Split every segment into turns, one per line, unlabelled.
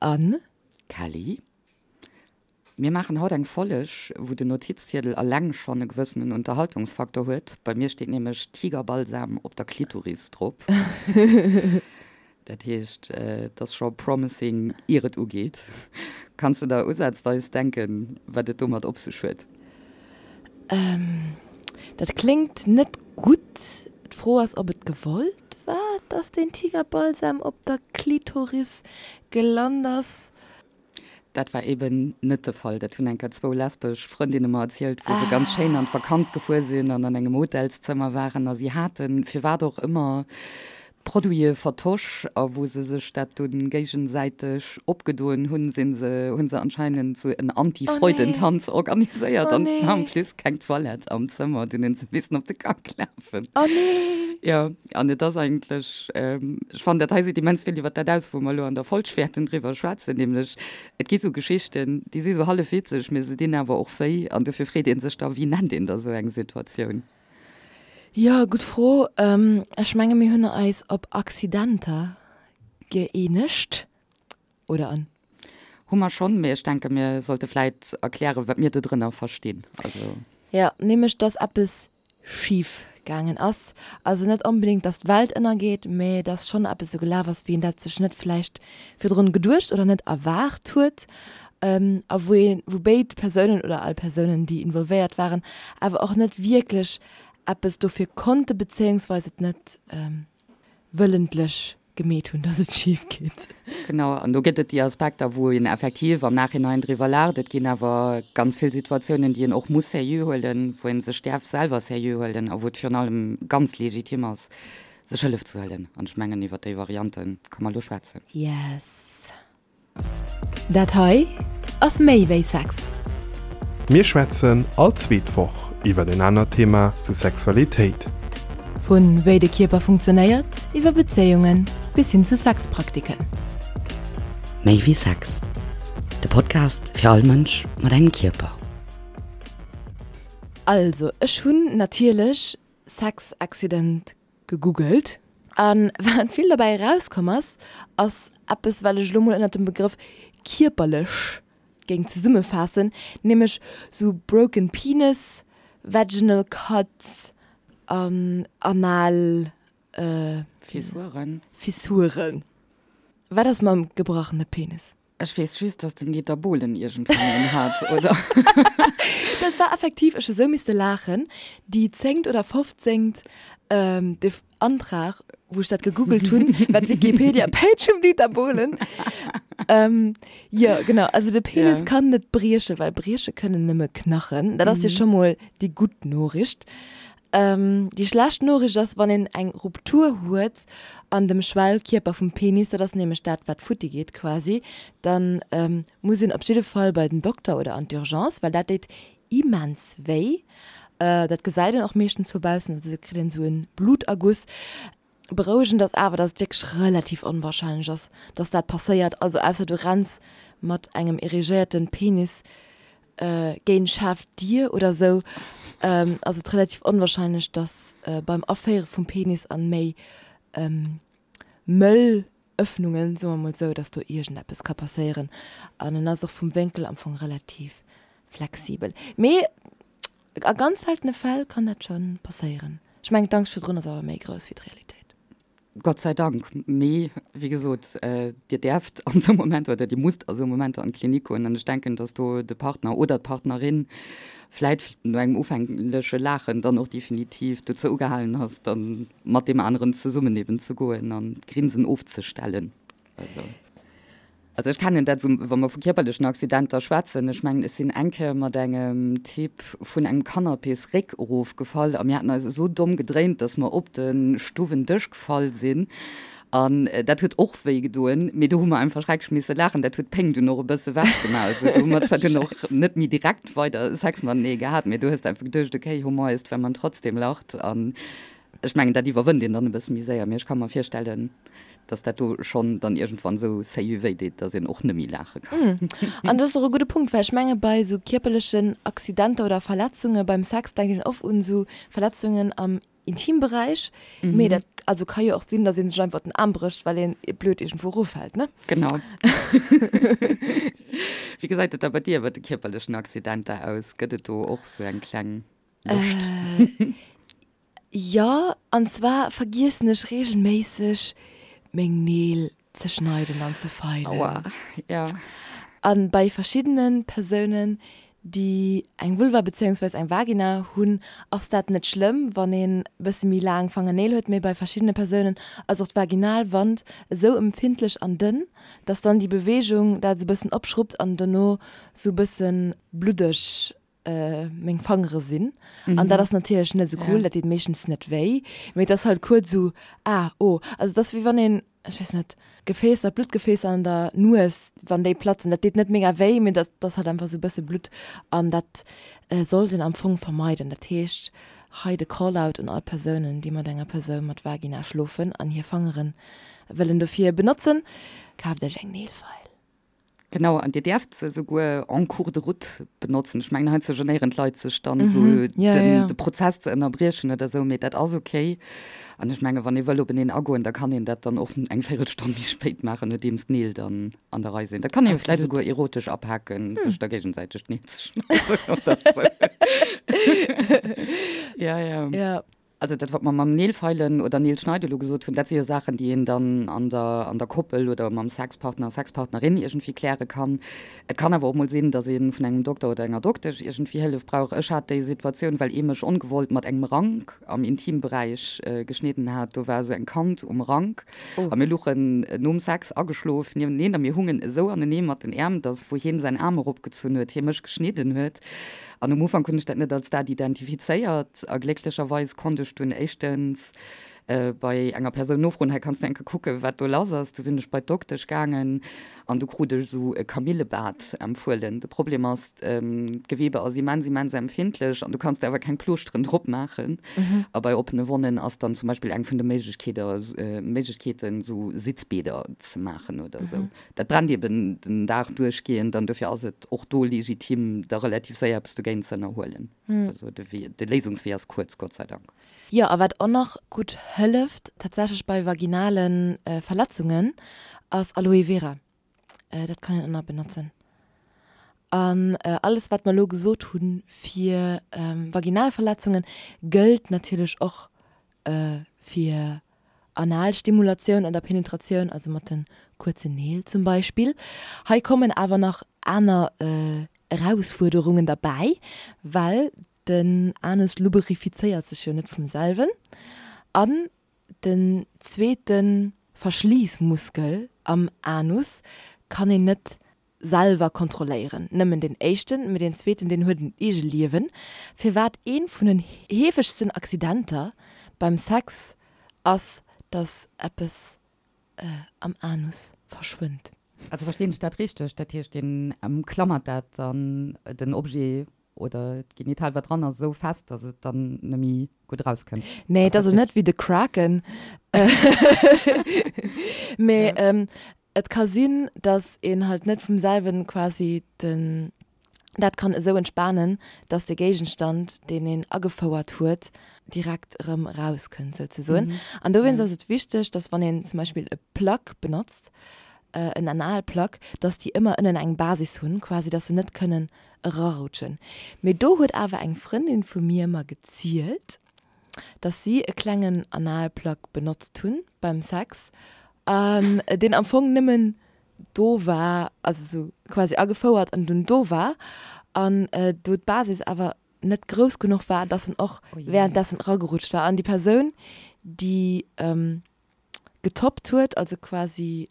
An.
Kelly. Mir maachen haut eng Folleg, wou den Notizziedel alleng schonn e gewëssenen Unterhaltungsfaktor huet. Bei mir steet nämlech Tigerbalsam op der Klitoris drop. Dat heescht, et ass scho promising, ier et ugeet. Kanns de der usazweis denken, wat et domat op sech huet?
Dat kléngt net gutt. D'Fro ass, ob et gewollt war, dass deen Tigerbalsam op der Klitoris gelant ass.
Dat war eben net de Fall. Dat hunn eng Kéier zwou lesbesch Frëndinne mer erzielt, wou se ganz schéin an d'Vakanz gefuer sinn an an engem Hotelszëmmer waren a si haten, firwat och ëmmer, d'Produite vertosch a wou se sech dat dunn géigesäiteg opgedoen hunn, sinn se, hu se anscheinend sou en Anti-Freudentanz organiséiert an et war en plus keng Toilette am Zëmmer. Dunn hunn se missen op de Gank lafen.
Oh nee!
Jo, an et ass eigentlech. Ech fannen, dat hei seet immens vill iwwer dat aus, wou mer elo an der Folg wäerten driwwer schwätzen, nämlech et gi sou Geschichten, déi si sou hallef witzeg, mee se dinn awer och wéi. An dofir freet ee sech da, Wéi nennt een da sou eng Situatioun?
Jo, gutt Fro. Ech menge mir hunn eis op Accidenter gëeenegt, oder an?
Hu mer schonn, mee ech denke mir sollte vläit erklären, wat mir dodrënner verstinn.
Also. Jo, nämlech dass eppes schif gaangen ass. Also net onbedéngt, dass d'Welt ënnergeet, mee dass schonn eppes esou gelaf ass, wéi een dat sech net vläicht virdrun geduecht oder net erwaart huet a wou een, wou béid Persounen oder all Persounen, déi involvéiert waren, awer och net wierklech eppes dofir konnte bezéiungsweis et net wëllentlech gemeet hunn, dass et schif geet.
Genau, an do gëtt et déi Aspekter, wou een effektiv am Nachhinein driwwer laacht. Et ginn awer ganz vill Situatiounen, déi een och muss seriö huelen, wou ee sech däerf selwer seriö huelen a wou et virun allem ganz legitim ass, sech Hëllef ze huelen. An ech mengen, iwwer déi Variante ka mer elo schwätzen.
Yes. Dat hei ass méi wéi Sex.
Mir schwätzen all zweet Woch iwwer en anert Thema zu Sexualitéit.
Vu wéi de Kierper funktionéiert, iwwer Bezéiungen bis hin zu Sexpraktiken.
Méi wéi Sex, de Podcast fir all Mënsch mat engem Kierper.
Also ech hunn natierlech Sex Accident gegoogelt. A wat vill derbäi erauskomm ass, ass eppes, wat ech elo mol ënnert dem Begrëff kierperlech géing zesummefaassen, nämlech sou broken penis, vaginal cuts an anal
Fissuren.
Fissuren. Wat ass mam gebrachene Penis?
Ech weess just, dass den Dieter Bohlen iergendwann een hat, oder?
Dat war effektiv, ech hu sou misste laachen, déi zéngt oder fofzéngt Antrag, wou ech dat gegoogelt hunn, war d'Wikipedia-Page vum Dieter Bohlen. Jo, genau, also de Penis kann net briechen, well brieche kënnen nëmme Knachen. Dat ass jo scho mol déi gutt Noriicht. Déi schlecht Noriicht ass, wann een eng Ruptur huet an dem Schwellkierper vum Penis, dat ass nämlech dat, wat futti geet quasi, da muss een op jidde Fall bei den Dokter oder an d'Urgence, well dat deet immens wéi. Dat gesäit een och meeschtens vu baussen, also do kritt een esou e Bluterguss. Berouegend ass awer, dass et wierklech relativ onwahrscheinlech ass, dass dat passéiert, also ausser du renns mat engem erigéierten Penis géint schaarf Dier oder sou, ass et relativ onwahrscheinlech, dass beim Aféiere vum Penis an méi mëll Öffnungen, soe mer mol sou, dass do iergendeppes ka passéieren. An en ass och vum Wénkel am Fong relativ flexibel. Mee A ganz seltene Fäll kann dat scho passéieren. Ech mengen d'Angscht virdrun ass awer méi grouss wéi d'Realitéit.
Gott sei Dank. Mee wéi gesot, Dir däerft an esou Momenter oder Dir musst a sou Momenter an d'Klinik goen. An ech denken, datt do de Partner oder d'Partnerin vläit no engem ufängleche Laachen dann och definitiv dozou ugehalen ass, da mat deem aneren zesummen eben ze goen an d'Grinsen ofzestellen. Also. Also ech kennen dat esou, wa mer vu kierperlechen Accidenter schwätzen, ech mengen, ech sinn eng Kéier mat engem Typ vun engem Canapésréck erofgefall a mir haten eis esou domm gedréint, datt mer op de Stuwendësch gefall sinn an dat huet och wéi gedoen, mee do hu mer einfach schrecklech misse laachen. Dat huet d'Péng dunn och e bësse wechgemaach. Also do hu mer zwar dunn och net méi direkt weider Sex matenee gehat, mee du hues einfach geduecht, okay, Humor ist, wenn man trotzdem lacht an Ech mengen, dat iwwerwënnt een dann e bësse méi séier, mee ech ka mer virstellen, dass dat do schonn dann iergendwann esou séier wéi deet, dass een och net méi laache
kann. An dat ass och e gudde Punkt, well ech menge bei esou kierperlechen Accidenter oder Verletzunge beim Sex denkt een oft un esou Verletzungen am. Intimberäich, mee dat also ka jo och sinn, datt ee sech einfach den Aarm brécht, well een blöd iergendwou eroffält, ne?
Genau. Wéi gesäit et da bei dir iwwer de kierperlechen Accidenter aus? Gëtt et do och sou eng kleng Lëscht?
Jo, an zwar vergiessen ech regelméisseg meng Neel ze schneiden an ze feilen.
Aua, ja.
An bei verschiddenen Persounen déi eng Vulva bezéiungsweis eng Vagina hunn, ass dat net schlëmm, wann een bësse méi laang Fangerneel huet, mee bei verschiddene Persounen ass och d'Vaginalwand esou empfindlech an dënn, dass dann déi Beweegung dat esou bëssen opschruppt an dono sou bëssen bluddeg meng Fangere sinn. An dat ass natierlech net esou cool, dat deet meeschtens net wéi, mee et ass halt kuerz esou, ah, oh. Also et ass wéi wann een, ech weess net, Gefäässer, Bluttgefäässer an der Nues, wann déi platzen, dat deet net mega wéi, mee dat ass halt einfach esou e bësse Blutt an dat sollt een am Fong vermeiden. Dat heescht, hei de Call-out un all Persounen, déi mat enger Persoun mat Vagina schlofen an hir Fangere wëllen dofir benotzen, kaaft iech eng Neelfeil.
Genau, an Dir däerft se souguer en cours de route benotzen. Ech mengen, heiansdo genéieren d'Leit sech dann esou, den, de Prozess ze ënnerbriechen oder esou, mee dat ass okay. An ech menge wann ee wëll openeen agoen, da kann een dat dann och eng Véirelstonn méi spéit maachen, nodeems d'Neel dann an der Rei sinn. Dat kann ee jo vläicht souguer erotesch apaken, sech da géigesäiteg d'Neel ze schneiden oder esou. Ja, ja. Also dat, wat mer mam Neelfeilen oder Neelschneide elo gesot hunn, dat si jo Saachen, déi een dann an der, an der Koppel oder mam Sexpartner, Sexpartnerin iergendwéi kläre kann. Et kann awer och mol sinn, datt ee vun engem Dokter oder enger Doktesch iergendwéi Hëllef brauch. Ech hat déi Situatioun, well ee mech ongewollt mat engem Rank am Intimberäich geschnidden hat. Do war esou eng Kant um Rank a mir luchen nom Sex ageschlof niewenteneen a mir hungen esou anenee mat den Äerm, datt wou hien säin Aarm eropgezunn huet, hie mech geschnidden huet. An um Ufank hunn ech dat net als dat identifizéiert a glécklecherweis konnt ech dunn éischtens bei enger Persoun nofroen, hei kanns du eng Kéier kucken, wat do lass ass. Du sinn ech bei d'Doktesch gaangen an du krut ech esou e Kamillebad empfuelen. De Problem ass, d'Gewebe ass immens, immens empfindlech an du kanns der awer keng Plooschteren drop maachen. A bei oppene Wonnen ass dann zum Beispill eng vun de Méiglechkeeten, esou Sitzbäder ze maachen oder esou. Dat brennt eben den Dag duerchgehend an dofir ass et och do legitim, da relativ séier eppes dogéint ze ënnerhuelen. Also de Wee, de Léisungswee ass kuerz, Gott sei Dank.
Jo, a wat och nach gutt hëlleft tatsächlech bei vaginale Verletzungen, ass Aloe Vera. Dat kann een och nach benotzen. An alles wat mer elo gesot hu fir vaginal Verletzungen, gëllt natierlech och fir Analstimulatioun oder Penetratioun, also mat de kuerzen Neel zum Beispill. Hei kommen awer nach aner Erausfuerderungen derbäi, well den Anus luberifizéiert sech jo net vum selwen an den zweete Verschliissmuskel am Anus kann een net selwer kontrolléieren. Nëmmen deen éischten, mee deen zweeten, deen huet en Eegeliewen, firwat ee vun den heefegsten Accidenter beim Sex ass, dass eppes am Anus verschwënnt.
Also verstinn ech dat richteg? Dat heescht, deen ëmklammert dat dann, den Objet oder d'Genital wat dran ass, esou fest, dass et dann net méi gutt erauskënnt?
Nee, et ass elo net wéi de Kraken, mee Et ka sinn, dass een halt net vum selwen quasi den, dat kann esou entspanen, dass de Géigenstand, deen een agefouert huet, direkt erëm erauskënnt souzesoen. An dowéinst ass et wichteg, dass wann een zum Beispill e Plug benotzt, en Analplug, dass déi ëmmer ënnen eng Basis hunn, quasi dass se net kënnen erarutschen. Mee do huet awer eng Frëndin vu mir mer gezielt, dass si e klengen Analplug benotzt hunn beim Sex an deen am Fong nëmmen do war, also sou quasi agefouert an dunn do war an do d'Basis awer net grouss genuch war, dass en och währenddessen eragerutscht war an déi Persoun déi getoppt huet, also quasi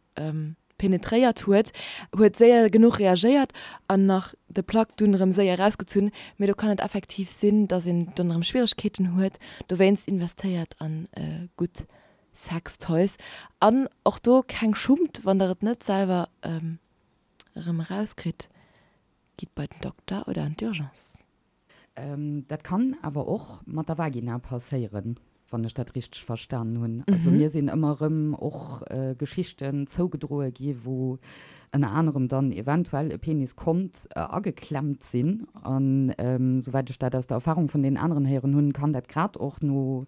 penetréiert huet, huet séier genuch reagéiert an nach de Plug dunn erëm séier erausgezunn. Mee do kann et effektiv sinn, dass een dunn erëm Schwieregkeeten huet. Dowéinst investéiert an gutt Sextoys an och do keng Schummt, wann der et net selwer erëm erauskritt, gitt bei den Dokter oder an d'Urgence.
Dat kann awer och mat der Vagina passéieren. Wann ech dat richteg verstanen hunn. Also mir sinn ëmmer erëm och Geschichten zougedroe gi wou ënner anerem dann eventuell e Penis konnt ageklemmt sinn. An souwäit ech dat aus der Erfahrung vun deenen aneren héieren hunn, kann dat grad och no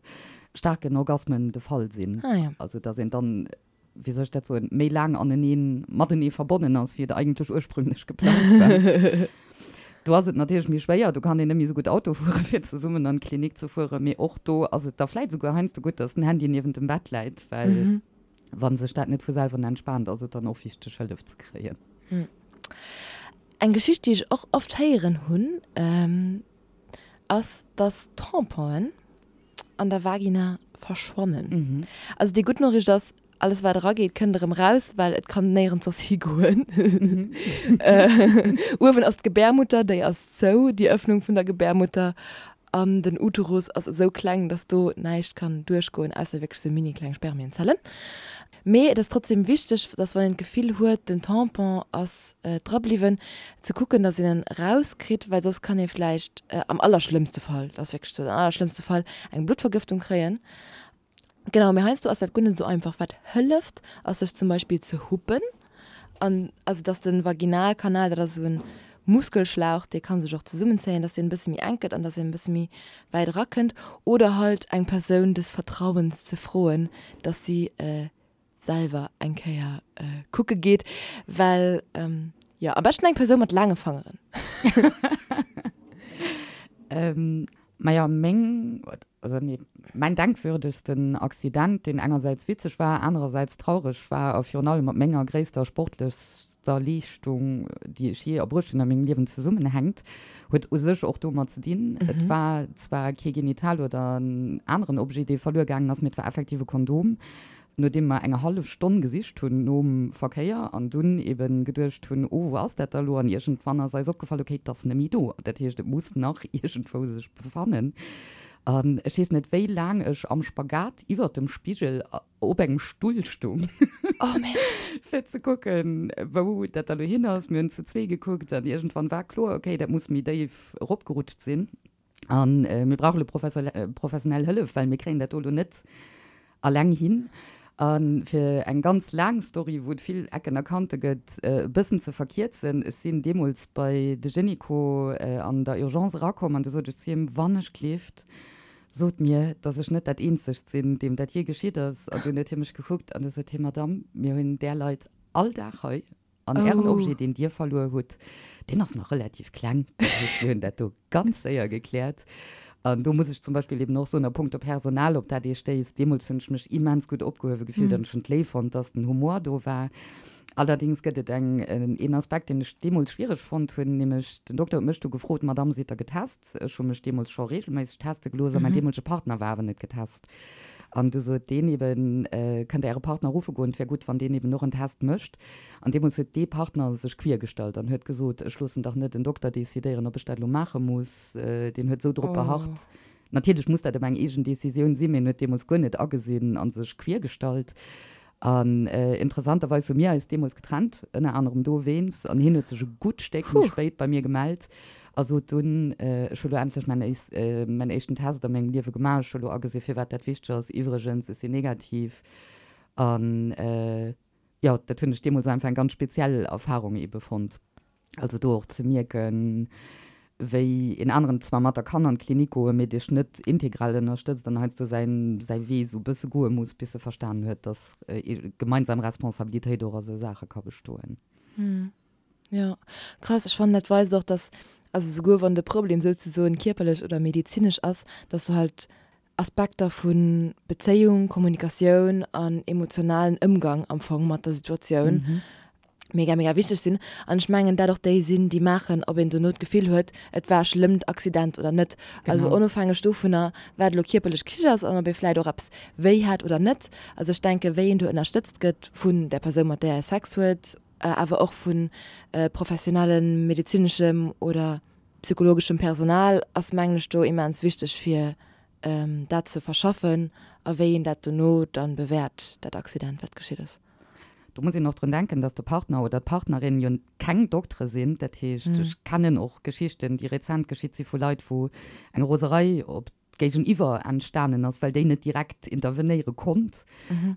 staarken Orgasmen de Fall sinn. Also datt een dann wéi soll ech dat soen, méi laang aneneen, matenee verbonnen ass, wéi et eigentlech ursprünglech geplangt war. Do ass et natierlech méi schwéier, do kann een net méi esou gutt Auto fueren, fir zesummen an d'Klinik ze fueren, mee och do ass et da vläit esouguer heiansdo gutt, dass den Handy niewent dem Bett läit, well wa sech dat net vu selwer entspaant, ass et dann och wichteg, Hëllef ze kréien.
Eng Geschicht, déi ech och oft héieren hunn, ass, dass Tamponen an der Vagina verschwannen. Also déi gutt Noriicht ass, alles wat erageet kënnt erëm raus, well et kann néierens soss higoen. Uewen ass d'Gebärmutter, déi ass zou, déi Ëffnung vun der Gebärmutter, an den Uterus ass esou kleng, dass do näischt kann duerchgoen, ausser wierklech sou mini kleng Spermienzellen. Mee et ass trotzdem wichteg, dass wann een d'Gefill huet, den Tampon ass dra bliwwen, ze kucken, dass een en erauskritt, well soss kann ee vläicht am allerschlëmmste Fall, dat ass wierklech den allerschlëmmste Fall, eng Bluttvergëftung kréien. Genau, mee heiansdo ass dat guer net esou einfach. Wat hëlleft, ass sech zum Beispill ze huppen an also dass de Vaginalkanal, dat ass esou en Muskelschlauch, dee ka sech och zesummenzéien, dass deen e bësse méi enk gëtt an dass een e bësse méi wäit erakënnt. Oder halt eng Persoun des Vertrauens ze froen, dass si selwer eng Kéier kucke geet, well jo, am beschten eng Persoun mat laange Fangeren.
Majo, meng, also nee, mäin denkwürdegsten Accident, deen engersäits witzeg war, anerersäits traureg war a virun allem mat menger gréisster sportlechster Leeschtung, déi ech jee erbruecht hunn a mengem Liewen zesummenhänkt, huet u sech och domat ze dinn. Et war zwar kee Genital oder en aneren Objet, dee verluer gaangen ass, mee et war effektiv e Kondom. Nodeem mer eng hallef Stonn gesicht hunn nom Verkéier an dunn eben geduecht hunn, oh wou ass dat da lo, an iergendwann ass eis opgefall, okay, et ass net méi do, dat heescht et muss nach iergendwou sech befannen. An ech weess net wéi laang ech am Spagat iwwert dem Spigel op engem Stull stung, fir ze kucken, wou dat da lo hin ass. Mir hunn zu zwee gekuckt an iergendwann war kloer, okay, dat muss méi déif eropgerutscht sinn. An mir brauche elo professionell Hëllef, well mir kréien dat do elo net alleng hin. A fir eng ganz laang Story, wou et vill Ecken a Kante gëtt, e bëssen ze verkierzen, Ech sinn deemools bei de Gynéco an der Urgence erakomm an du sot ech zu him, Wann ech gleeft, sot mir, datt ech net dat Eenzegt sinn, deem dat jee geschitt ass. An dunn huet hie mech gekuckt an du sot hie, Madamm, mir hunn där Leit all Dag hei. An Ären Objet, deen Dir verluer hutt, deen ass nach relativ kleng. Dat heescht, mir hunn dat do ganz séier gekläert. An do muss ech zum Beispill eben och soen, a punkto Personal, op dat Dir stéisst, deemools hunn ech mech immens gutt opgehuewe gefillt an ech hunn et léif fonnt, dass den Humor do war. Allerdéngs gëtt et eng, een Aspekt, deen ech deemools schwiereg fonnt hunn, nämlech den Dokter huet mech du gefrot, Madamm, sidd Der getest? Ech hu mech deemools scho reegelméisseg teste gelooss a mäin deemolege Partner war awer net getest. An du sot deen eben, Kënnt Der Äre Partner ruffe goen, et wär gutt, wann deen eben och en Test mécht. An deemools huet dee Partner sech queer gestallt an huet gesot, Ech loossen dach net en Dokter decidéieren, ob ech dat elo maache muss. Deen huet esou drop beharrt. Natierlech muss dat ëmmer eng eegen Decisioun sinn, mee en huet deemools guer net agesinn a sech queer gestallt. An interessanterweis hu mir eis deemools getrennt, ënner anerem dowéinst. An hien huet sech e gutt Stéck méi spéit bei mir gemellt a sot dunn, Ech hu lo endlech mäin mäin éischten Test a mengem Liewe gemaach. Ech hu lo agesi firwat dat wichteg ass. Iwwregens, ech sinn negativ. An jo, dat hunn ech deemools einfach eng ganz speziell Erfarung ebe fonnt. Also do och ze mierken, wéi een aneren zwar mat der kann an d'Klinik goen, mee dech net integral ënnerstëtzt an heiansdo säin säi Wee esou e bësse goe muss, bis e verstanen huet, dass gemeinsam Responsabilitéit och a sou Saache ka bestoen.
Jo, krass. Ech fannen dat weist och, dass, also souguer wann de Problem souzesoen kierperlech oder medezinesch ass, dass du halt Aspekter vu Bezéiung, Kommunikatioun an emotionalen Ëmgang am Fong mat der Situatioun mega, mega wichteg sinn. An ech mengen, dat och déi sinn, déi maachen, ob een dono d'Gefill huet, et war e schlëmmt Accident oder net. Also onofhängeg dovunner, wat elo kierperlech geschitt ass an ob ee vläicht och eppes wéi hat oder net. Also ech denken, wéi een do ënnerstëtzt gëtt vun där Persoun, mat där ee Sex huet, awer och vu professionellem medezineschem oder psychologeschem Personal ass mengen ech do immens wichteg fir dat ze verschaffen a wéi een dat dono dann bewäert, dat Accident wat geschitt ass.
Do muss een och drun denken, dass de Partner oder d'Partnerin jo keng Doktere sinn. Dat heescht, ech kennen och Geschichten, déi rezent geschitt si vu Leit, wou eng Roserei op. Géigeniwwer entstanen ass, well déi net direkt intervenéiere konnt.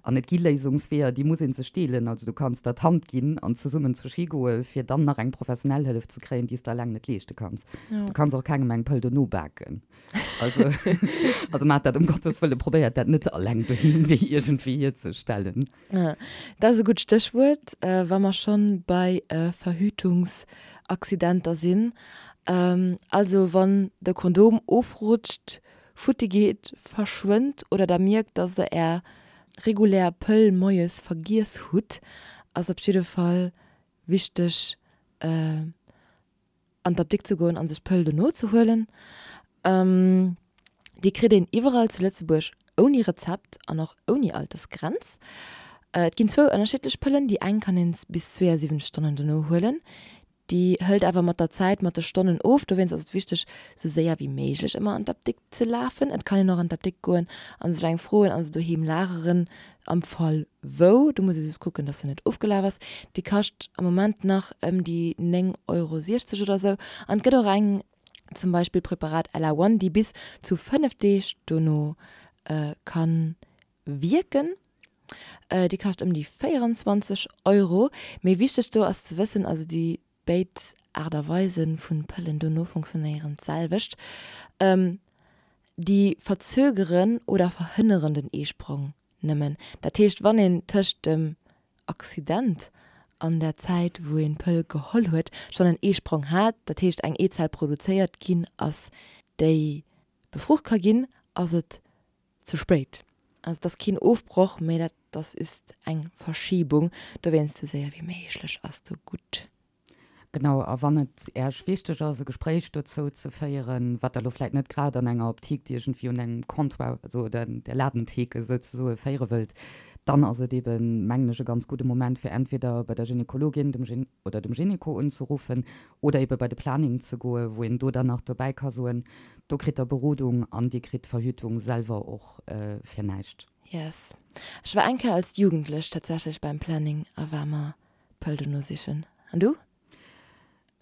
An et gi Léisungsweeër, déi muss ee sech deelen. Also du kanns der d'Hand ginn an zesummen zur Ski goe fir dann nach eng professionell Hëllef ze kréien, déi s de eleng net leeschte kanns. Du kanns och kengem eng Pëll dono baken. Also, also maacht dat ëm Gottes Wëlle, probéiert dat net eleng doheem déi iergendwéi hierzestellen.
Dat ass e gutt Stéchwuert, wa mer schonn bei Verhütungsaccidenter sinn. Also wann de Kondom ofrutscht, futti geet, verschwënnt oder der mierkt, dass der är regulär Pëll moies vergiess hutt, ass op jidde Fall wichteg an d'Apdikt ze goen an sech d'Pëll dono ze huelen. Déi kritt een iwwerall zu Lëtzebuerg ouni Rezept an och ouni Altersgrenz. Et ginn zwou ënnerschiddlech Pëllen, déi eng kann een bis 72 Stonnen dono huelen, déi hëlt awer mat der Zäit mat de Stonnen of. Dowéinst ass et wichteg, sou séier wéi méiglech ëmmer an d'Apdikt ze lafen. Et kann een och an d'Apdikt goen a sech eng froen a se doheem lageren am Fall wou. Do muss ee just kucken, dass se net ofgelaf ass. Déi kascht am Moment nach ëm déi 9,60 Euro oder sou. An et gëtt och eng, zum Beispill Preparat Ella One, déi bis zu 5 Deeg dono ka wierken. Déi kascht ëm déi 24 Euro. Mee wichteg do ass ze wëssen, also déi béid Aart a Weise vun Pëllen dono funktionéieren d'selwecht. Déi verzögeren oder verhënneren den Eesprong nëmmen. Dat heescht, wann een tëscht dem Accident an der Zäit wou een d'Pëll geholl huet schonn en Eesprong hat, dat heescht eng Eezell produzéiert ginn ass, déi befrucht ka ginn, ass et ze spéit. Also et ass keen Ofbroch, mee dat ass just eng Verschibung. Dowéinst sou séier wéi méiglech ass do gutt.
Genau, a wann et Äech wichteg ass, e Gespréich dozou ze féieren, wat Der elo vläit net grad an enger Optik iergendwéi un engem Comptoir, also der Ladentheke souzesoe féiere wëllt, dann ass et eeben, mengen ech, e ganz gudde Moment, fir entweder bei der Gynekologin dem oder dem Gyneko unzeruffen oder eebe bei de Planning ze goen, wou een do dann nach dobäi ka soen, Do kritt der Berodung an dir kritt d'Verhütung selwer och fir näischt.
Yes. Ech war eng Kéier als Jugendlech tatsächlech beim Planning a war mer d'Pëll dono sichen. An du?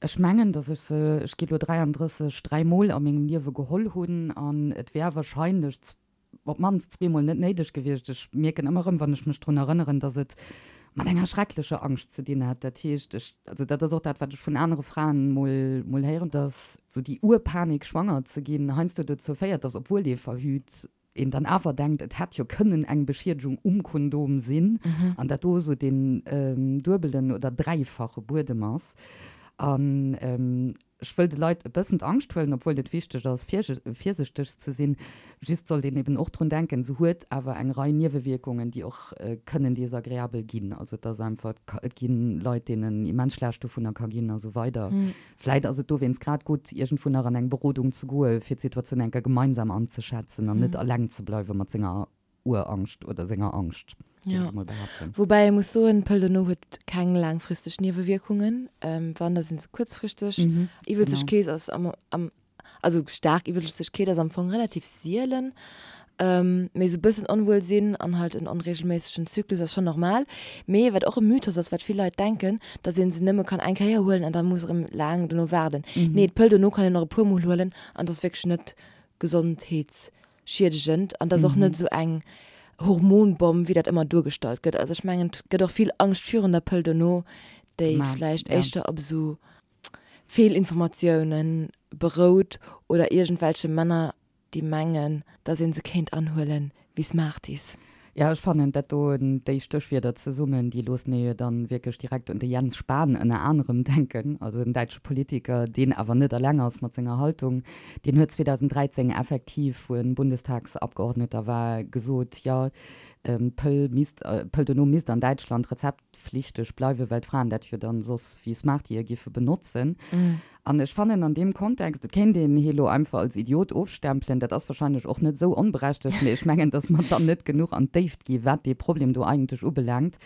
Ech mengen, dass ech se, ech gi lo 33, dräimol a mengem Liewe geholl hunn an et wär wahrscheinlech op d'mannst zweemol net néideg gewiescht. Ech mierken ëmmer erëm, wann ech mech drun erënneren, dass et mat enger schrecklecher Angscht ze dinn hat. Dat heescht, ech, also dat ass och dat, wat ech vun anere Fraen mol, mol héieren, dass sou déi Urpanik, schwanger ze ginn, heiansdo dozou féiert, dass, obwuel ee verhüt, een dann awer denkt, et hätt jo kënnen eng Beschiedegung um Kondom sinn an dat do esou deen duebelen oder dräifache Buedem ass. An ech wëll de Leit e bëssen d'Angscht huelen, obwuel et wichteg ass, virsichteg ze sinn. Just sollt een eben och drun denken, se huet awer eng Rei Niewewierkungen, déi och kënnen desagreabel ginn. Also et ass einfach, et gi Leit, deenen immens schlecht dovunner ka ginn a sou weider. Vläit ass et dowéinst grad gutt, iergendwou nach an eng Berodung ze goen, fir d'Situatioun eng Kéier gemeinsam anzeschätzen an net eleng ze bleiwe mat senger Urangscht oder senger Angscht,
géif ech emol behaapten. Woubäi ee muss soen, d'Pëll dono huet keng laangfristeg Niewewierkungen. Wann, da si se kuerzfristeg. Iwwelzegkeet ass am, am, also staark Iwwelzegkeet ass am Fong relativ sielen. Mee esou bëssen Onwuelsinn an halt en onreegelméissegen Zyklus ass schonn normal. Mee wat och e Mythos ass, wat vill Leit denken, dass ee se nëmme kann eng Kéier huelen an da muss erëm laang dono waarden. Nee, d'Pëll dono kann een och e puer Mol huelen an et ass wierklech net gesondheetsschiedegend an et ass och net esou eng Hormonbomm, wéi dat ëmmer duergestallt gëtt. Also ech mengen, et gëtt och vill Angscht virun der Pëll dono, déi vläicht éischter op esou Feelinformatiounen berout oder iergendwelche Männer déi mengen, dass een se kéint anhuelen wéi Smarties.
Jo, ech fannen dat do, déi Stéchwierder zesummen, déi loossen ee jo dann wierklech direkt un de Jens Spahn ënner anerem denken, also en däitsche Politiker, deen awer net eleng ass mat senger Haltung. Deen huet 2013 effektiv, wou en Bundestagsabgeordneter war, gesot, jo, d'Pëll misst, d'Pëll dono misst an Däitschland Rezept, flichteg bleiwen, well d'Fraen dat jo dann soss wéi Smartie giffe benotzen. An ech fannen an deem Kontext, et kéint een hie lo einfach als Idiot ofstempelen, dat ass wahrscheinlech och net esou onberechtegt, mee ech mengen, datt mer dann net genuch an d'Déift gi wat dee Problem do eigentlech ubelaangt.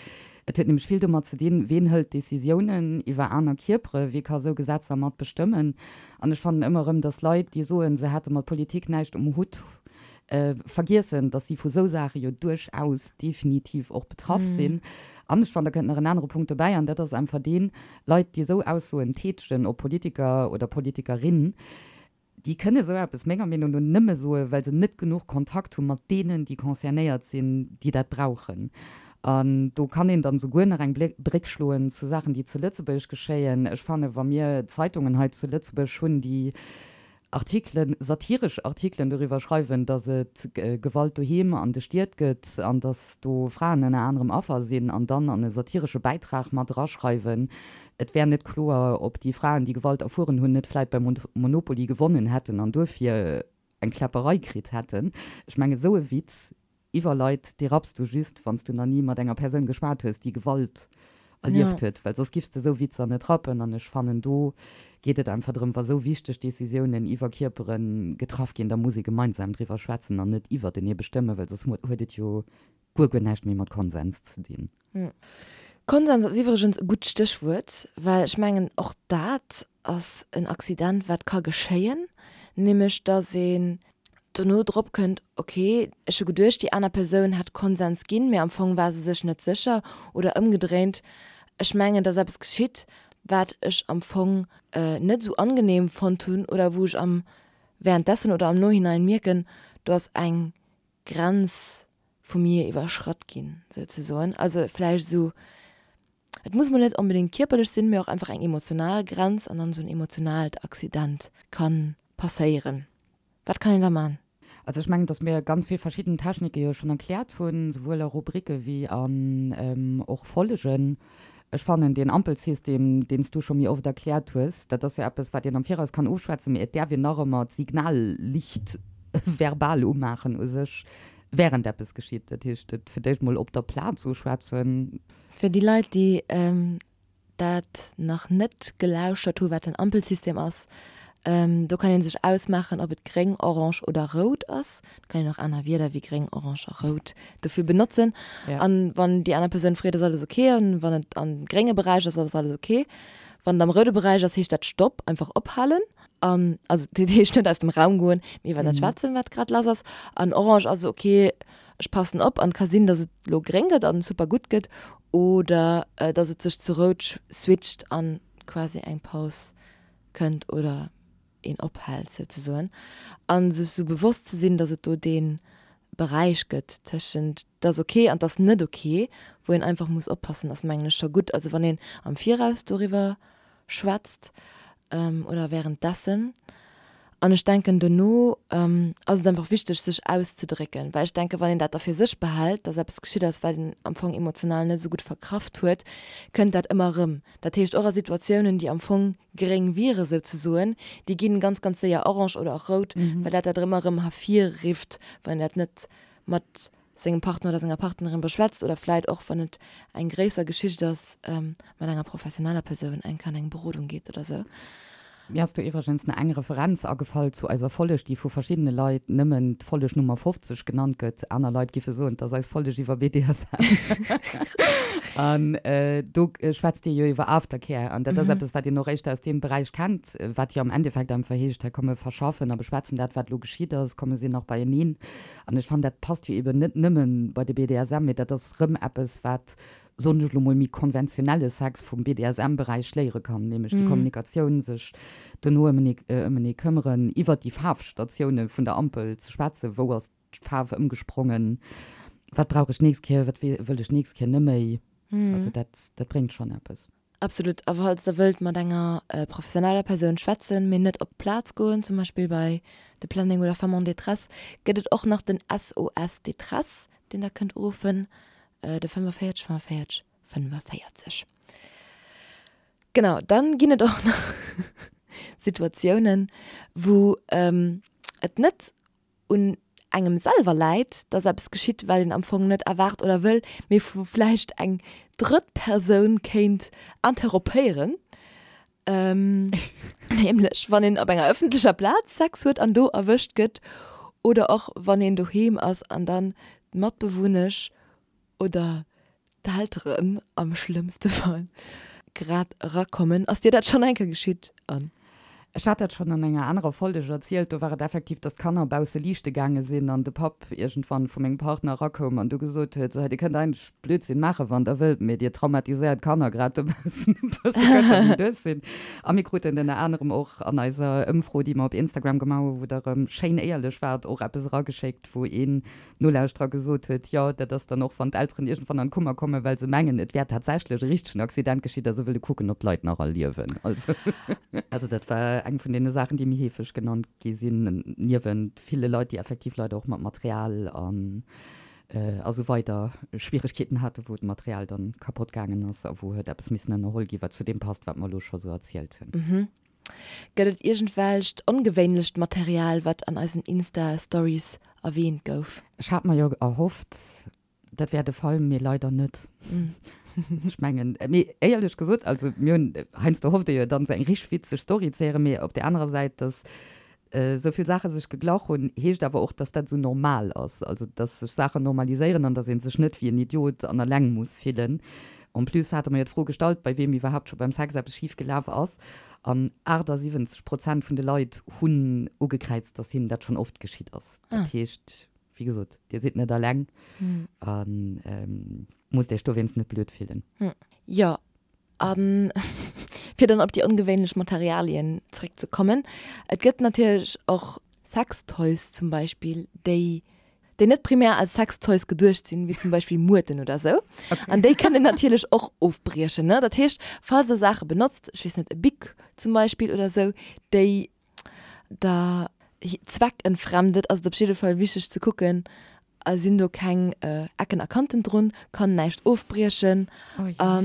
Et huet nämlech vill domat ze dinn, ween hëlt Decisiounen iwwer aner Kierpere, wie ka esou Gesetzer mat bestëmmen. An ech fannen ëmmer erëm, datt Leit, déi soen, se hätte mat Politik näischt um Hutt, vergiessen, dass si vu sou Saache jo duerchaus definitiv och betraff sinn. An ech fannen, da kënnt nach en anere Punkt dobäi, an dat ass einfach deen, Leit, déi esou Aussoen tätegen, ob Politiker oder Politikerin, Déi kënne sou eppes menger Meenung no nëmme soen, well se net genuch Kontakt hu mat deenen, déi concernéiert sinn, déi dat brauchen. An do kann een dann souguer nach eng Bréck schloen zu Saachen, déi zu Lëtzebuerg geschéien. Ech fannen, wa mir Zeitungen hei zu Lëtzebuerg hunn, déi Artikelen, satiresch Artikelen doriwwer schreiwen, datt et Gewalt doheem an de Stied gëtt an datt do Fraen ënner anerem Affer sinn, an dann an e satiresche Bäitrag mat eraschreiwen, et wär net kloer, ob déi Fraen, déi Gewalt erfueren hunn, net vläit beim Monopoly gewonnen hätten an duerfir eng Kläpperei kritt hätten. Ech mengen, esou e Witz Iwwer Leit, déi rapps du just, wann s du nach ni mat enger Persoun geschwat hues, déi Gewalt erlieft huet, well soss giffs de esou Witzer net rappen. An ech fannen, do geet et einfach drëm, wa sou wichteg Decisiounen iwwer Kierpere getraff ginn, da muss ee gemeinsam driwwer schwätzen an net iwwertenee bestëmmen, well soss huet et jo guer, guer näischt méi mat Konsens ze dinn.
Konsens ass iwwregens e gutt Stéchwuert, well ech mengen, och dat ass en Accident, wat ka geschéien, nämlech dass een dono drop kënnt, ok, ech hu geduecht, déi aner Persoun hätt Konsens ginn, mee am Fong war se sech net sécher, oder ëmgedréint, ech mengen, et ass eppes geschitt, wat ech am Fong net esou angenehm fonnt hunn oder wou ech am währenddessen oder am Nohinein mierken, do ass eng Grenz vu mir iwwerschratt ginn, souzesoen. Also vläicht esou, et muss mol net onbedéngt kierperlech sinn, mee och einfach eng emotional Grenz an dann esou en emotionaalt Accident ka passéieren. Wat kann een da man?
Also ech mengen, dass mir ganz vill verschidden Technike jo schonn erkläert hunn, souwuel a Rubrike wéi an och Follegen. Ech fannen deen Ampelsystem, deen s du scho méi oft erkläert hues, dat ass jo eppes, wat een am Viraus kann ofschwätzen, mee et däerf een nach ëmmer d'Signallicht verbal umaachen u sech, während eppes geschitt. Dat heescht, et fir d'éischt mol op der Plaz uschwätzen.
Fir déi Leit, déi dat nach net gelauschtert hu wat den Ampelsystem ass, do kann een sech ausmaachen ob et gréng, orange oder rout ass. Et kann een och aner Wierder wéi gréng, orange a rout dofir benotzen. An wann déi aner Persoun freet ass alles ok an wann et am grénge Beräich ass ass alles ok. Wann et am roude Beräich ass heescht dat Stopp, einfach ophalen an also dat heescht net aus dem Raum goen, mee iwwer dat schwätzen wat grad lass ass. An orange ass ok, ech passen op an et ka sinn, datt et lo gréng gëtt an super gutt gëtt oder datt et sech zu rout switcht an quasi eng Paus kënnt oder een ophält souzesoen a sech sou bewosst ze sinn, datt et do dee Beräich gëtt tëschent 't ass ok an 't ass net ok, wou een einfach muss oppassen, ass mengen ech scho gutt. Also wann een am Viraus doriwwer schwätzt oder währenddessen. An ech denken dono ass et einfach wichteg sech auszedrécken, well ech denken, wann een dat da fir sech behält, datt eppes geschitt ass, wat een am Fong emotional net esou gutt verkraft huet, kënnt dat ëmmer erëm. Dat heescht och a Situatiounen, déi am Fong gréng wiere souzesoen, déi ginn ganz, ganz séier orange oder och rout, well dat dat ëmmer erëm hervirrifft, wann een dat net mat sengem Partner oder senger Partnerin beschwätzt oder vläit och, wann et eng gréisser Geschicht ass, mat enger professioneller Persoun eng Kéier an eng Berodung geet oder sou.
Mir ass do iwwregens nach eng Referenz agefall zu eiser Folleg, déi vu verschiddene Leit nëmmen d'Folleg Nummer 50 genannt gëtt. Aner Leit giffe soen, 't ass eis Folleg iwwer BDSM. An do schwätzt Dir jo iwwer Aftercare. An dat ass eppes, wat een och éischter aus deem Beräich kennt, wat jo am Endeffekt einfach heescht, hei komm mir verschaffen a beschwätzen dat, wat elo geschitt ass, komm mir sinn nach beieneen. An ech fannen, dat passt jo eben net nëmme bei de BDSM, mee dat ass rëm eppes, wat, soen ech elo mol, méi konventionelle Sex vum BDSM-Beräich léiere kann, nämlech déi Kommunikatioun, sech dono ëmenee këmmeren, iwwert déi Faarfstatioune vun der Ampel ze schwätzen, wou ass d'Faarf ëmgesprongen, wat brauch ech d'nächst Kéier, wat wëll ech d'nächst Kéier neméi. Also dat, dat bréngt schonn eppes.
Absolut. A falls der wëllt mat enger professioneller Persoun schwätzen, mee net op d'Plaz goen, zum Beispill bei de Planning oder Femmes en détresse, gëtt et och nach den SOS Détresse, deen der kënnt uruffen, de 45 45 45. Genau, dann ginn et och nach Situatiounen, wou et net un engem selwer läit, dass eppes geschitt, wat een am Fong net erwaart oder wëll, mee wou vläicht eng drëtt Persoun kéint interrompéieren. Nämlech wann een op enger ëffentlecher Plaz Sex huet an do erwëscht gëtt oder och wann een doheem ass an dann d'Matbewunnesch oder d'Elteren am schlëmmste Fall grad erakommen. Ass dir dat schonn eng Kéier geschitt, Anne?
Ech hat dat schonn an enger anerer Folleg erzielt, do war et effektiv, dass d'Kanner bausse liichte gaange sinn an de Papp iergendwann vu mengem Partner erakoum an du gesot huet, sou hei, dir kënnt eigentlech Blödsinn maachen, wann der wëllt, mee dir traumatiséiert d'Kanner grad dobaussen e bësse, kënnt der mol duerch sinn. A mir kruten ënner anerem och an eiser Ëmfro, déi mer op Instagram gemaach hunn, wou der erëm schéin éierlech waart, och eppes erageschéckt, wou een Nolauschterer gesot huet, jo, dat ass dann och, wann d'Elteren iergendwann an d'Kummer kommen, well se mengen, et wär tatsächlech e richtegen Accident geschitt a se wëlle kucken, ob d'Leit nach all liewen. Also, also dat war eng vun deene Saachen, déi méi heefeg genannt gi sinn, niewent ville Leit, déi effektiv leider och mat Material an a sou weider Schwieregkeeten haten, wou d'Material dann kapott gaangen ass a wou huet eppes missen ënnerholl ginn, wat zu deem passt, wat mer elo scho sou erzielt hunn.
Gëtt et iergendwelcht ongewéinlecht Material, wat an eisen Insta Stories erwähnt gouf?
Ech hat mer jo erhofft, dat wär de Fall, mee leider net. Ech mengen, mee éierlech gesot, also mir hunn, heiansdo hofft ee jo dann esou eng richteg witzeg Story ze héieren, mee op där anerer Säit, dass esou vill Saache sech geglach hunn, heescht awer och, dass dat esou normal ass, also dass sech Saachen normaliséieren an dass ee sech net wéi en Idiot an eleng muss fillen. En plus hate mer jo d'Fro gestallt, bei weem iwwerhaapt scho beim Sex eppes schif gelaf ass, an 78 Prozent vun de Leit hunn ugekräizt, dass hinnen dat schonn oft geschitt ass. Dat heescht, wéi gesot, Dir sidd net eleng a musst Iech dowéinst net blöd fillen.
Jo, a fir dann op déi ongewéinlech Materialien zréckzekommen, Et gëtt natierlech och Sextoys zum Beispill, déi déi net primär als Sextoys geduecht sinn, wéi zum Beispill Muerten oder sou. Okay. An déi kënnen natierlech och ofbriechen, ne? Dat heescht, falls der Saache benotzt, ech weess net, e Bic zum Beispill oder sou, déi der zweckentfremdet, ass et op jidde Fall wichteg ze kucken, sinn do keng Ecken a Kanten drun, kann näischt ofbriechen a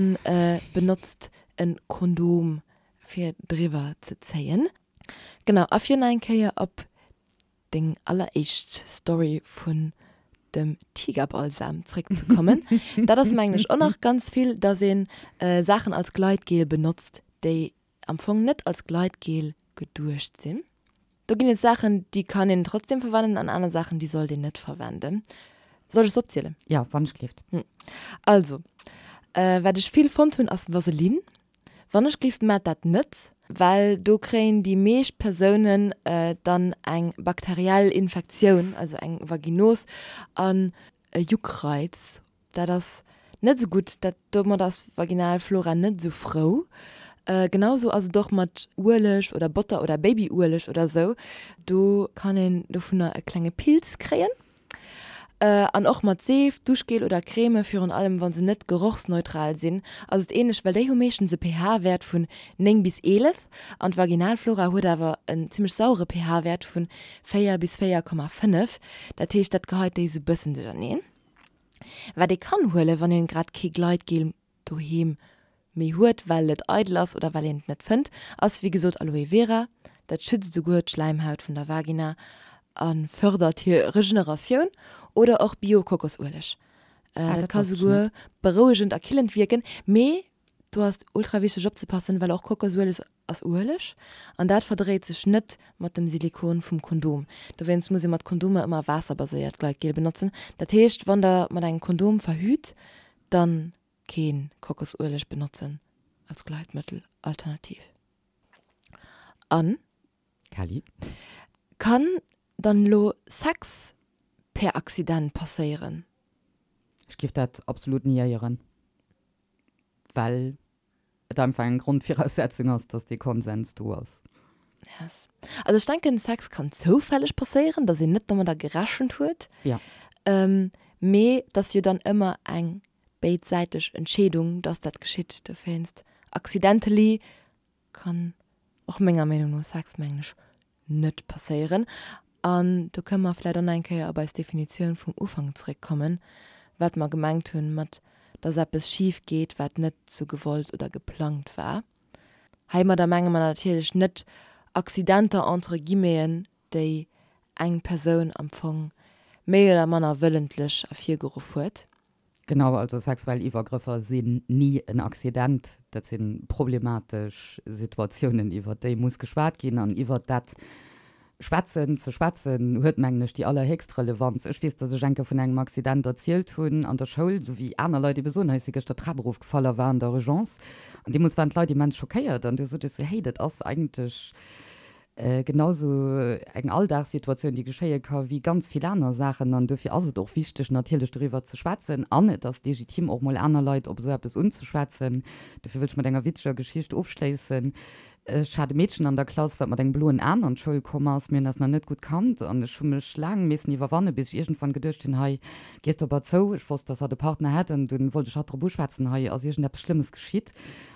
benotzt e Kondom fir driwwer ze zéien. Genau, a fir nach eng Kéier op deng alleréischt Story vun dem Tigerbalsam zréckzekommen. Dat ass mengen ech och nach ganz vill, dass een Saachen als Gleitgel benotzt, déi am Fong net als Gleitgel geduecht sinn. Do ginn et Saachen, déi kann een trotzdem verwenden an aner Saachen, déi sollt een net verwenden. Soll ech se opzielen?
Jo, wann ech gleeft.
Also, wat ech vill fonnt hunn, ass Vaseline. Wannechgelift maacht dat net, well do kréien déi meescht Persounen dann eng bakteriell Infektioun, also eng Vaginos an e Juckreiz. Dat ass net esou gutt, dat domat ass d'Vaginalflora net esou frou. Genau esou ass et och mat Ueleg oder Botter oder Babyueleg oder esou, do kann een dovunner e klenge Pilz kréien. An och mat Seef, Duschgel oder Creme, virun allem wa se net gerochsneutral sinn, ass et änlech, well déi hu meeschtens e pH-Wäert vun 9 bis 11 an d'Vaginalflora huet awer en zimmlech sauere pH-Wäert vun 4 bis 4,5. Dat heescht, dat geheit déi sou bëssen duercherneen. Wat ee kann huelen, wann een grad kee Gleitgel doheem méi huet, well et eidel ass oder well een et net fënnt, ass wéi gesot Aloe Vera. Dat schützt esouguer d'Schläimhaut vun der Vagina a fërdert hir Regeneratioun. Oder och Bio-Kokosueleg. Dat ka souguer berouegend a killend wierken. Mee do ass et ultra wichteg opzepassen, well och Kokosueleg ass Ueleg an dat verdréit sech net mat dem Silikon vum Kondom. Dowéinst muss ee mat Kondomer ëmmer waasserbaséiert Gleitgel benotzen. Dat heescht, wann der mat engem Kondom verhüt, dann keen Kokosueleg benotzen als Gleitmëttel alternativ. An.
Kelly.
Kann dann elo Sex per Accident passéieren?
Ech giff dat absolut niéieren, well et einfach eng Grondviraussetzung ass, dass dee Konsens do ass.
Yes. Also ech denken, Sex kann zoufälleg passéieren, dass een net domadder gerechent huet.
Ja.
Ähm, mee et ass jo dann ëmmer eng béidsäiteg Entscheedung, dass dat geschitt. Dowéinst accidentally kann och menger Meenung no Sex, mengen ech, net passéieren. An do kënne mer vläicht och nach eng Kéier op eis Definitioun vum Ufank zréckkommen, wat mer gemengt hunn mat, dass eppes schif geet, wat net sou gewollt oder geplangt war. Heimadder menge mer natierlech net Accidenter entre guillemeten, déi eng Persoun am Fong méi oder manner wëllentlech ervirgeruff huet.
Genau, also sexuell Iwwergrëffer sinn ni en Accident. Dat si problematesch Situatiounen, iwwert déi muss geschwat ginn. An iwwert dat schwätzen, ze schwätzen, huet, mengen ech, déi allerhéchst Relevanz. Ech weess, datt ech eng Kéier vun engem Accident erzielt hunn an der Schoul, esou wéi aner Leit ebe soen, hei si gëschter d'Trap erofgefall a war an der Urgence. An deemools waren d'Leit immens schockéiert. An du sot ech esou, hey, dat ass eigentlech. Genau sou eng Alldagssituatioun, déi geschéie ka wéi ganz vill aner Saachen. An dofir ass et och wichteg, natierlech doriwwer ze schwätzen. An et ass legitim, och mol aner Leit op esou eppes unzeschwätzen. Dofir wëll ech mat enger witzeger Geschicht ofschléissen. Ech hat e Meedchen an der Klass, wat mat engem bloen Aen an d'Schoul komm ass. Mir hunn eis nach net gutt kannt an ech hu mech laang missen iwwerwannen, bis ech iergendwann geduecht hunn, hei gees de op hatt zou. Ech wosst, dass hatt e Partner hätt an dunn wollt ech hatt drop uschwätzen, hei ass iergendeppes Schlëmmes geschitt.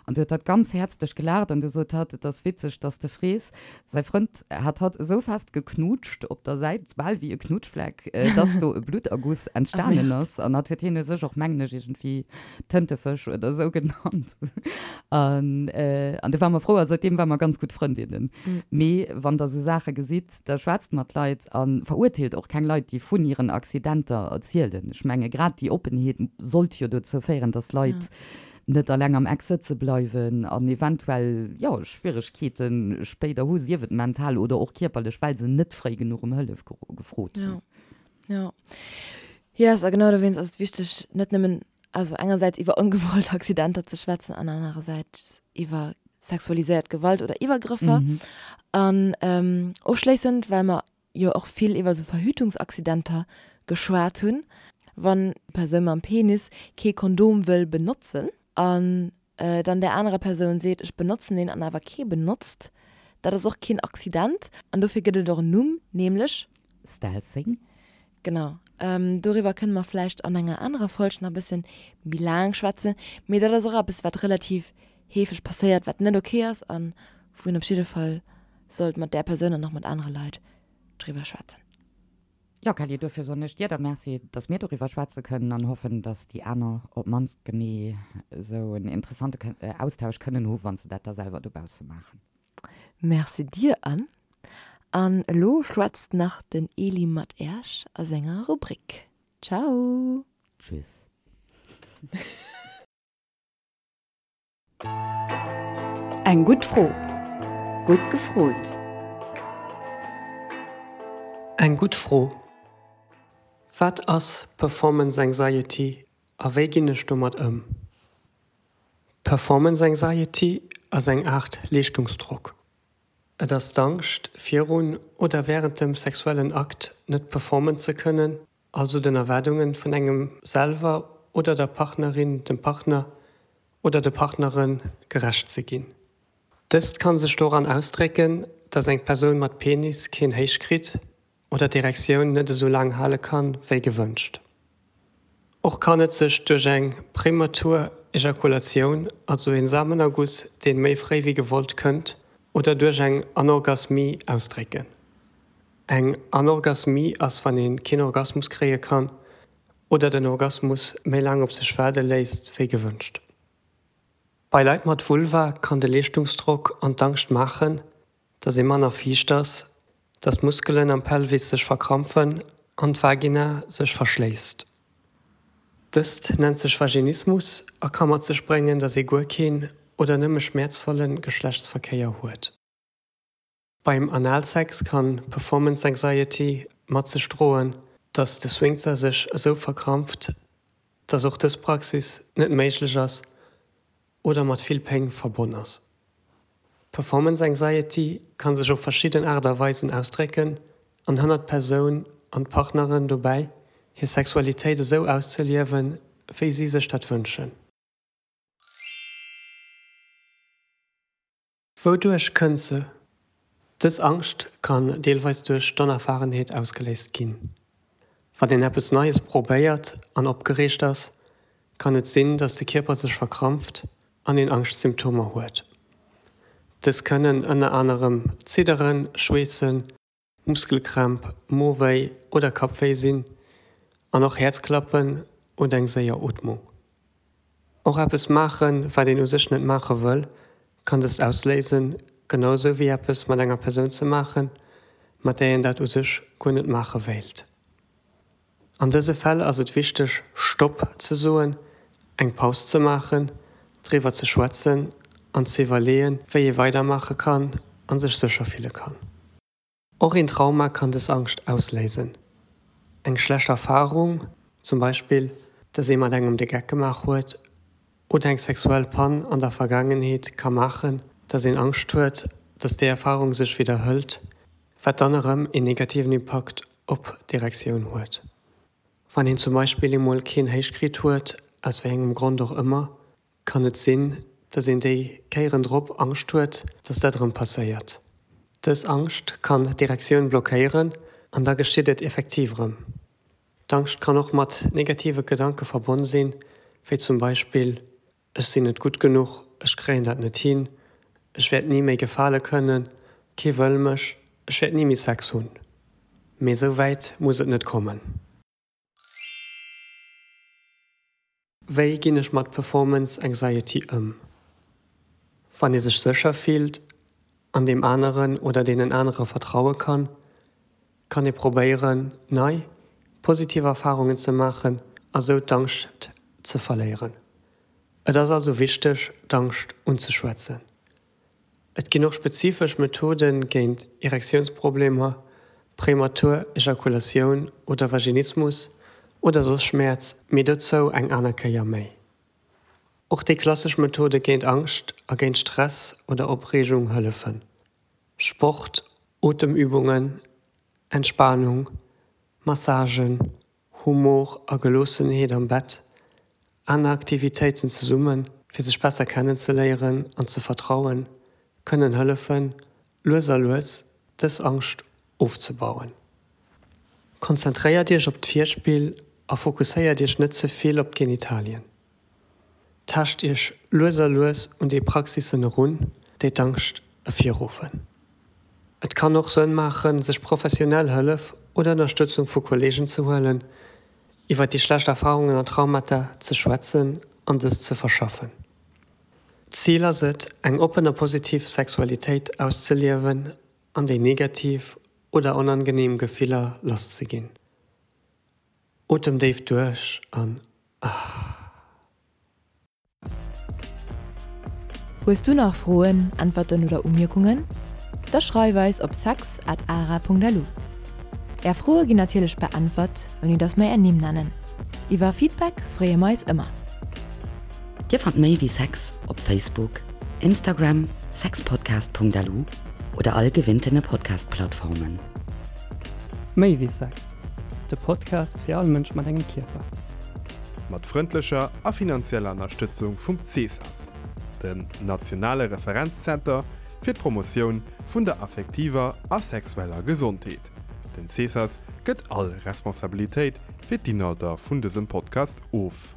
An du huet hatt ganz häerzlech gelaacht an du sot hatt, Et ass witzeg, dass de frees. Säi Frënd hat hatt esou fest geknutscht op der Säit, bal wéi e Knutschfleck, dass do e Blutterguss entstanen ass. An hatt huet hien u sech och, mengen ech, iergendwéi Tëntefësch oder esou genannt. An du ware mer frou a säitdeem ware mer ganz gutt Frëndinnen. Mee wann der esou Saache gesitt, Da schwätzt mat Leit a verurteelt och keng Leit, déi vun hiren Accidenter erzielen. Ech menge grad déi Oppenheet sollt jo dozou féieren, datt Leit net alleng am Eck sëtze bleiwen an eventuell, jo, Schwieregkeete spéider hu, sief et mental oder och kierperlech, well se net fréi genuch ëm Hëllef gefrot hunn.
Jo, jo. Yes, a genau dowéinst ass et wichteg, net nëmmen Also engersäits iwwer ongewollt Accidenter ze schwätzen an anerersäits iwwer sexualiséiert Gewalt oder Iwwergrëffer. Mhm. An ähm, ofschléissend, well mer jo och vill iwwer sou Verhütungsaccidenter geschwat hunn, wann d'Persoun mam Penis kee Kondom wëll benotzen an äh, dann där anerer Persoun seet, ech benotzen een an awer kee benotzt, dat ass och keen Accident an dofir gëtt et och en Numm, nämlech.
Stealthing.
Genau. Doriwwer kënne mer vläicht an enger anerer Folg nach e bëssen méi laang schwätzen. Mee dat ass och eppes, wat relativ heefeg passéiert, wat net ok ass a wou een op jidde Fall sollt mat där Persoun an och mat anere Leit driwwer schwätzen.
Jo, Kelly, dofir soen ech dir da Merci, dass mir doriwwer schwätze kënnen an hoffen, dass déi aner op d'mannst genee esou en interessante Austausch kënnen hu wa se dat da selwer dobausse maachen.
Merci dir Anne. An elo schwätzt nach den Eli mat Äerch a senger Rubrik. Ciao!
Tschüss.
Eng gutt Fro.
Gutt gefrot.
Eng gutt Fro, Wat ass Performance Anxiety a wéi ginn ech domat ëm? Performance Anxiety ass eng Aart Leeschtungsdrock. Et ass d'Angscht, virun oder wärend dem sexuellen Akt net performen ze kënnen, also den Erwaardunge vun engem selwer oder der Partnerin, dem Partner oder de Partnere gerecht ze ginn. Dëst kann sech doran ausdrécken, dass eng Persoun mat Penis keen Héich kritt oder d'Erektioun net esou laang hale kann, wéi gewënscht. Och kann et sech duerch eng prematur Ejakulatioun, also een Samenerguss deen méi fréi wéi gewollt kënnt, oder duerch eng Anorgasmie ausdrécken. Eng Anorgasmie ass wann een keen Orgasmus kréie kann oder den Orgasmus méi laang op sech waarde léisst wéi gewënscht. Bei Leit mat Vulva kann de Leeschtungsdrock an d'Angscht maachen, dass ee manner fiicht ass, dass d'Muskelen am Pelvis sech verkrampfen an d'Vagina sech verschléisst. Dëst nennt sech Vaginismus a ka mat sech bréngen, dass ee guer keen oder nëmme schmäerzvolle Geschlechtsverkéier huet. Beim Analsex kann Performance Anxiety mat sech droen, dass de Sphinkter sech esou verkrampft, dass och dës Praxis net méiglech ass oder mat vill Péng verbonn ass. Performance Anxiety kann sech op verschidden Aart a Weisen ausdrécken an hënnert d'Persoun an d'Partneren dobäi, hir Sexualitéit esou auszeliewen, wéi si sech dat wënschen. Wouduerch kënnt se? Dës Angscht kann deelweis duerch d'Onerfahrenheet ausgeléist ginn. Wann een eppes Neies probéiert an opgereegt ass, kann et sinn, dass de Kierper sech verkrampft an een Angschtsymptomer huet. Dës kënnen ënner anerem Zidderen, Schweessen, Muskelkrämp, Mowéi oder Kappwéi sinn an och Häerzklappen oder eng séier Ootmung. Och eppes maachen, wat een u sech net maache wëll, kann dëst ausléisen, genau sou wéi eppes mat enger Persoun ze maachen, mat där een dat u sech guer net maache wéilt. An dëse Fäll ass et wichteg, Stopp ze soen, eng Paus ze maachen, driwwer ze schwätzen an ze iwwerleeën, wéi ee weidermaache kann a sech sécher fille kann. Och een Trauma kann dës Angscht ausléisen. Eng schlecht Erfarung, zum Beispill, dass ee mat engem de Geck gemaach huet, oder eng sexuell Pann an der Vergaangenheet ka maachen, dass een Angscht huet, dass déi Erfarung sech widderhëlt, wat dann erëm een negativen Impakt op d'Erektioun huet. Wann een zum Beispill eemol keen Héich kritt huet, aus wéi engem Grond och ëmmer, kann et sinn, dass een déi Kéieren drop Angscht huet, dass dat erëm passéiert. Dës Angscht kann d'Erektioun blockéieren an da geschitt et effektiv erëm. D'Angscht kann och mat negative Gedanke verbonn sinn, wéi zum Beispill, Ech sinn net gutt genuch, ech kréien dat net hin, ech wäert ni méi gefale kënnen, kee wëll mech, ech wäert ni méi Sex hunn. Mee esou wäit muss et net kommen. Wéi ginn ech mat Performance Anxiety ëm? Wann ee sech sécher fillt an deem aneren oder deenen anere vertraue kann, kann ee probéieren, nei, positiv Erfarungen ze maachen a sou d'Angscht ze verléieren. Et ass also wichteg, d'Angscht unzeschwätzen. Et ginn och spezifesch Methode géint Erektiounsproblemer, prematur Ejakulatioun oder Vaginismus oder soss Schmäerz, mee dozou eng aner Kéier méi. Och déi klassesch Methode géint Angscht a géint Stress oder Opreegung hëllefen, Sport, Otemübungen, Entspanung, Massagen, Humor a Geloossenheet am Bett, aner Aktivitéiten zesummen, fir sech besser kennenzeléieren an ze vertrauen, kënnen hëllefen, lues a lues dës Angscht ofzebauen. Konzentréiert Iech op d'Virspill a fokusséiert Iech net ze vill op d'Genitalien. Taascht Iech lues a lues un déi Praxissen erun, déi d'Angscht ervirruffen. Et kann och Sënn maachen, sech professionell Hëllef oder Ënnerstëtzung vu Kolleegen ze huelen, iwwer déi schlecht Erfarungen an Traumata ze schwätzen an dës ze verschaffen. D'Zil ass et, eng oppen a positiv Sexualitéit auszeliewen an déi negativ oder onangeneem Gefiller lasszeginn. Otem déif duerch an ah.
Hues du nach Froen, Äntwerten oder Umierkungen? Da schreif eis op sex at ara.lu. Är Froe ginn natierlech beäntwert, ouni dass mer är Nimm nennen. Iwwer Feedback freeë mer eis ëmmer.
Dir fannt méi wéi Sex op Facebook, Instagram, sexpodcast.lu oder all gewinntene Podcast-Plattformen.
Méi wéi Sex, de Podcast fir all Mënsch mat engem Kierper.
Mat frëndlecher a finanzieller Ënnerstëtzung vum CESAS, dem nationale Referenzzenter fir d'Promotioun vun der affektiver a sexueller Gesondheet. Den CESAS gëtt all Responsabilitéit fir d'Inhalter vun dësem Podcast of.